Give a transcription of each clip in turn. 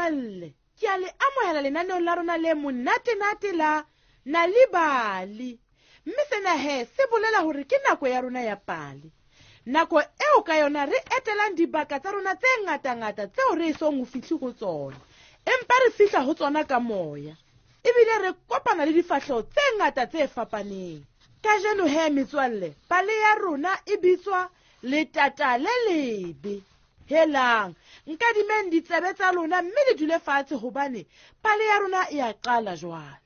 metswalle ke a le amohela lenaneong la rona le monatenate la Nal'ibali. Mme sena he se bolela hore ke nako ya rona ya pale. Nako eo ka yona re etelang dibaka tsa rona tse ngatangata tseo re esong ho fihle ho tsona, empa re fihla ho tsona ka moya. Ebile re kopana le difahleho tse ngata tse fapaneng. Kajeno he metswalle, pale ya rona e bitswa Letata le Lebe. Helang, nkadimeng ditsebe tsa lona mme le dule fatshe hobane pale ya rona e a qala jwale.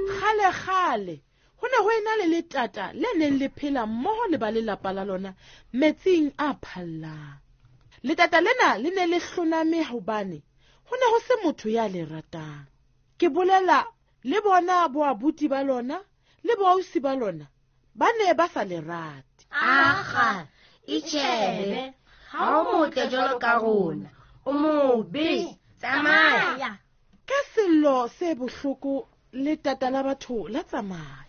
Kgale kgale go ne go ena le letata le neng le phela mmogo le ba lelapa la lona metsing a phallang. Letata lena le ne le hloname hobane go ne go se motho ya le ratang. Ke bolela le bona boabuti ba lona le boausi ba lona ba ne ba sa le rate. Aga, itšhebe, ga o motle jalo ka rona, o mobe, tsamaya. Ka sello se bohloko letata la batho la tsamaya.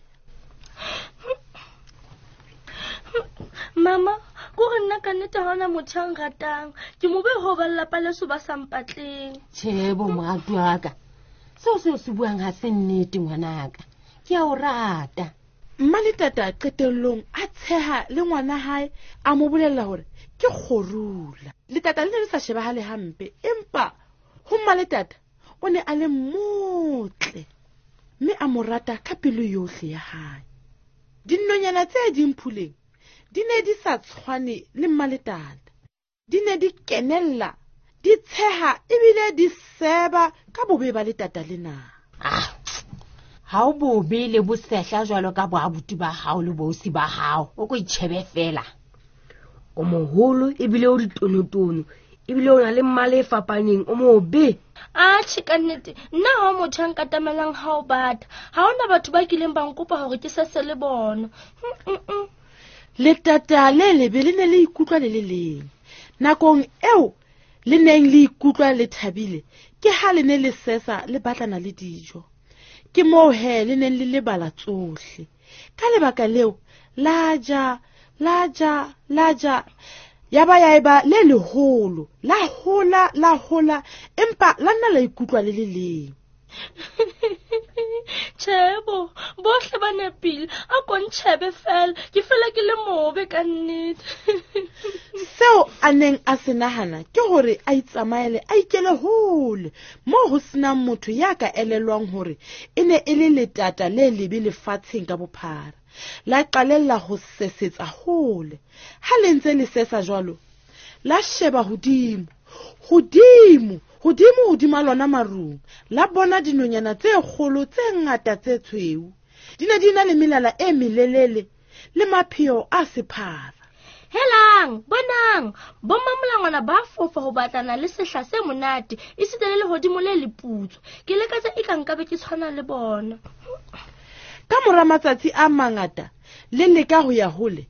Mama, ko re nna ka nnete ha ona motho a nratang. Ke mobe ho ba lelapa leso ba sa mpatleng. Tjhe, bo moratuwa wa ka. Seo seo se buang ha se nnete ngwanaka. Ke a o rata. Mma letata qetellong a tsheha le ngwana hae a mo bolella hore ke kgorula. Letata le ne le sa shebahale hampe, empa ho mma letata o ne a le motle mme a mo rata ka pelo yohle ya hae. Dinonyana tse ding phuleng di ne di sa tshwane le mma letata. Di ne di kenella, di tsheha ebile di seba ka bobe ba letata lena. Ah, ha o bobe le bosehla jwalo ka boabuti ba hao le boausi ba hao, o ko itjhebe fela. O moholo ebile o ditonotono, ebile o na le mmala e fapaneng, o mobe. Atjhe, ka nnete, nna ha o motho a nkatamelang ha o bata. Ha hona batho ba kileng ba nkopa hore ke sese le bona. Letata le lebe le ne le ikutlwa le le leng. Nakong eo le neng le ikutlwa le thabile, ke ha le ne le sesa le batlana le dijo. Ke moo he le neng le lebala tsohle. Ka lebaka leo, la ja, la ja, la ja, ya ba ya eba le leholo, la hola, la hola, empa la nna la ikutlwa le le leng. Tjhebo, bohle ba nepile, a ko ntjhebe fela, ke fela ke le mobe ka nnete. Seo a neng a se nahana ke hore a itsamaele a ikele hole moo ho senang motho ya ka elellwang hore e ne e le letata le lebe lefatsheng ka bophara. La qalella ho sesetsa hole. Ha le ntse le sesa jwalo, la sheba hodimo, hodimo, hodimo hodima lona marung, la bona dinonyana tse kgolo tse ngata tse tshweu. Di ne di na le melala e melelele le mapheo a sephara. Helang, bonang, bommamolangwana ba fofa ho batlana le sehla se monate, esita le lehodimo le leputswa. Ke lekatsa e ka nkabe ke tshwana le bona. Ka mora matsatsi a mangata, le leka ho ya hole,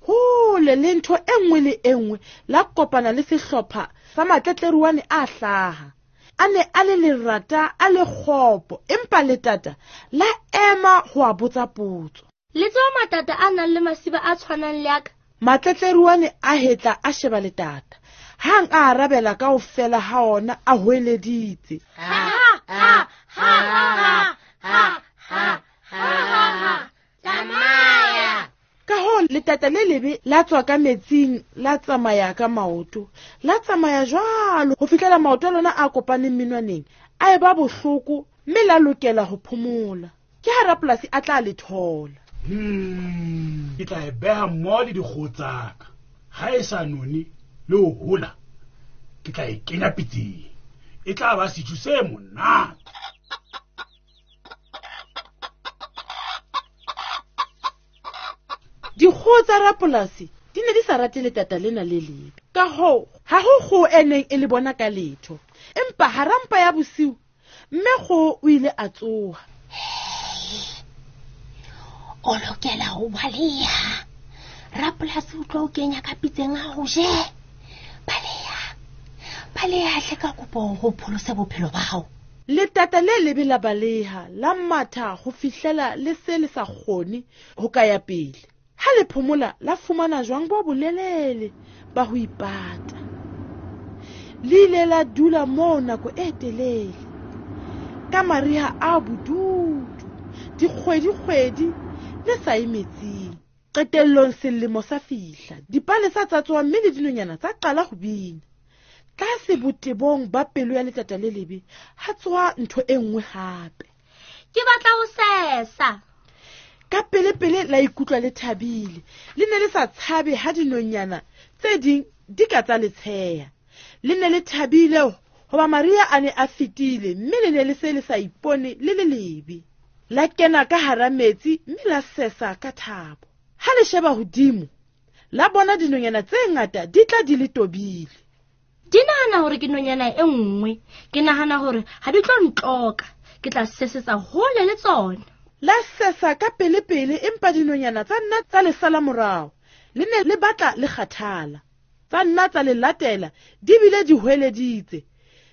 hole le ntho e nngwe le e nngwe, la kopana le sehlopha sa matletleruane a hlaha. A ne a le lerata, a le kgopo, empa letata la ema ho a botsa potso. Le tseba matata a nang le masiba a tshwanang le a ka? Matletleruane a hetla a sheba letata. Hang a arabela kaofela ha ona a hoeleditse. Ha, ha, ha, ha, ha, ha, ha, ha, tsamaya. Ka hoo letata le lebe la tswa ka metsing, la tsamaya ka maoto, la tsamaya jwalo ho fihlela maoto a lona a kopaneng menwaneng a eba bohloko mme la lokela ho phomola. Ke ha rapolasi a tla le thola. Ke tla e beha mmoho le dikgoho tsa ka. Ha e sa none le ho hola, ke tla e kenya pitseng. E tla ba sejo se monate. Dikgoho tsa rapolasi di ne di sa rate letata lena le lebe. Ka hoo, ha ho kgoho e neng e le bona ka letho. Empa hara mpa ya bosiu, mme kgoho o ile a tsoha. O lokela ho baleha. Rapolasi o tlo o kenya ka pitseng a ho je. Baleha. Baleha hle ka kopo ho pholose bophelo ba hao. Letata le lebe la baleha, la matha ho fihlela le se le sa kgone ho ka ya pele. Ha le phomola la fumana jwang bo bolelele ba ho ipata. Le ile la dula moo nako e telele. Ka mariha a bodutu, dikgwedi-kgwedi le sa ye metsing. Qetellong selemo sa fihla, dipalesa tsa tsoha mme le dinonyana tsa qala ho bina. Tlase botebong ba pelo ya letata le lebe ha tsoha ntho e nngwe hape. Ke batla ho sesa. Ka pele-pele la ikutlwa le thabile. Le ne le sa tshabe ha dinonyana tse ding di ka tsa le tsheha. Le ne le thabile hoba Maria a ne a fetile mme le ne le se le sa ipone le le lebe. La kena ka hara metsi mme la sesa ka thabo. Ha le sheba hodimo, la bona dinonyana tse ngata di tla di le tobile. Di nahana hore ke nonyana e nngwe. Ke nahana hore ha di tlo ntloka. Ke tla sesetsa hole le tsona. La sesa ka pele-pele empa dinonyana tsa nna tsa le sala morao. Le ne le batla le kgathala. Tsa nna tsa le latela di bile di hweleditse.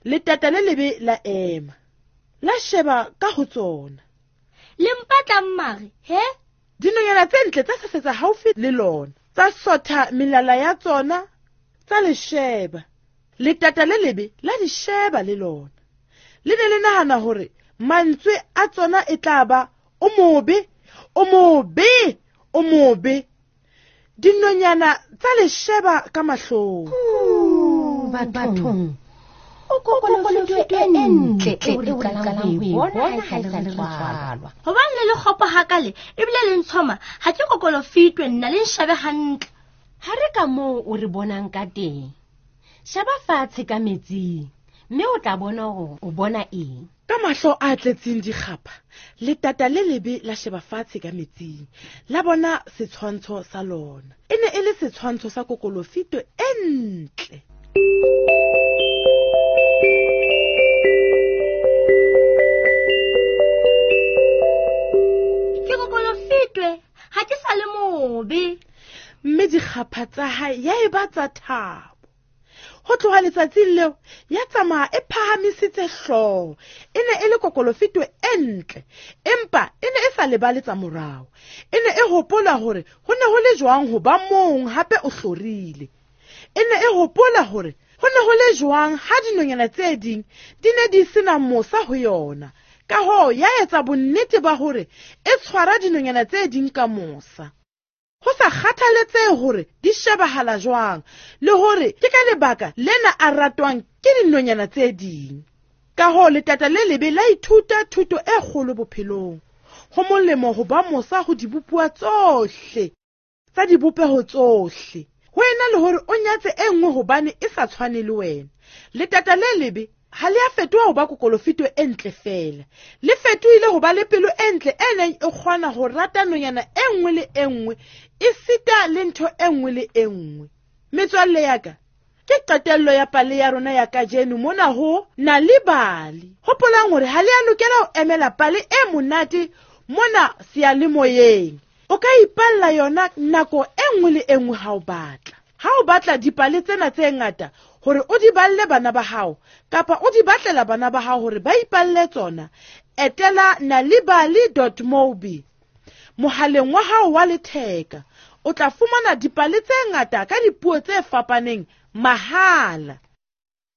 Letata le lebe la ema. La sheba ka ho tsona. Le mpatlang mare, he? Dinonyana tse ntle tsa sesetsa haufi le lona. Tsa sotha melala ya tsona, tsa le sheba. Letata le lebe la di sheba le lona. Le ne le nahana hore mantswe a tsona e tla ba o mobe, o mobe, o mobe. Dinonyana tsa le sheba ka mahlong. Bathong. O kokolofito e ntle eo re qalang ho e bona ha e sa le re tswalwa. Hobane le le kgopo hakale ebile le ntshoma, ha ke kokolofitwe nna le nshabe hantle. Ha re ka moo o re bonang ka teng. Sheba fatshe ka metsing mme o tla bona hore o bona eng. Ka mahlo a tletseng dikgapha, letata le lebe la sheba fatshe ka metsing, la bona setshwantsho sa lona. E ne e le setshwantsho sa kokolofito e ntle. Ke kokolofitwe, ha ke sa le mobe. Mme dikgapha tsa hae ya eba tsa thabo. Ho tloha letsatsing leo ya tsamaya e phahamisitse hlooho. E ne e le kokolofito e ntle, empa e ne e sa lebale tsa morao. E ne e hopola hore ho ne ho le jwang ho ba mong hape o hlorile. E ne e hopola hore ho ne ho le jwang ha dinonyana tse ding di ne di sena mosa ho yona. Ka hoo ya etsa bonnete ba hore e tshwara dinonyana tse ding ka mosa. Ho sa kgathaletsehe hore di shebahala jwang le hore ke ka lebaka lena a ratwang ke dinonyana tse ding. Ka hoo letata le lebe la ithuta thuto e kgolo bophelong. Ho molemo ho ba mosa ho dibopuwa tsohle tsa dibopeho tsohle. Ho ena le hore o nyatse e nngwe hobane e sa tshwane le wena. Letata le lebe ha le a fetoha ho ba kokolofito e ntle feela. Le fetohile ho ba le pelo e ntle e neng e kgona ho rata nonyana e nngwe le e nngwe, esita le ntho e nngwe le e nngwe. Metswalle ya ka, ke qetello ya pale ya rona ya kajeno mona ho Nal'ibali. Hopolang hore ha le a lokela ho emela pale e monate mona seyalemoyeng. O ka ipalla yona nako e nngwe le e nngwe ha o batla. Ha o batla dipale tsena tse ngata hore o di balle bana ba hao kapa o di batlela bana ba hao hore ba ipalle tsona, etela nalibali.mobi mohaleng wa hao wa letheka. O tla fumana dipale tse ngata ka dipuo tse fapaneng mahala.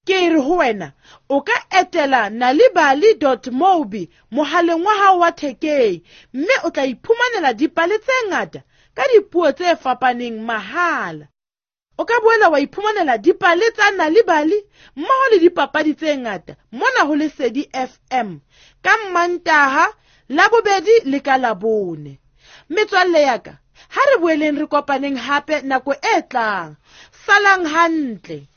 Ke re ho wena, o ka etela nalibali.mobi mohaleng wa hao wa thekeng mme o tla iphumanela dipale tse ngata ka dipuo tse fapaneng mahala. O ka boela wa iphumanela dipale tsa Nal'ibali mmoho le dipapadi tse ngata mona ho Lesedi FM ka Mmantaha, Labobedi le ka Labone. Metswalle ya ka, ha re boeleng re kopaneng hape nako e tlang. Salang hantle.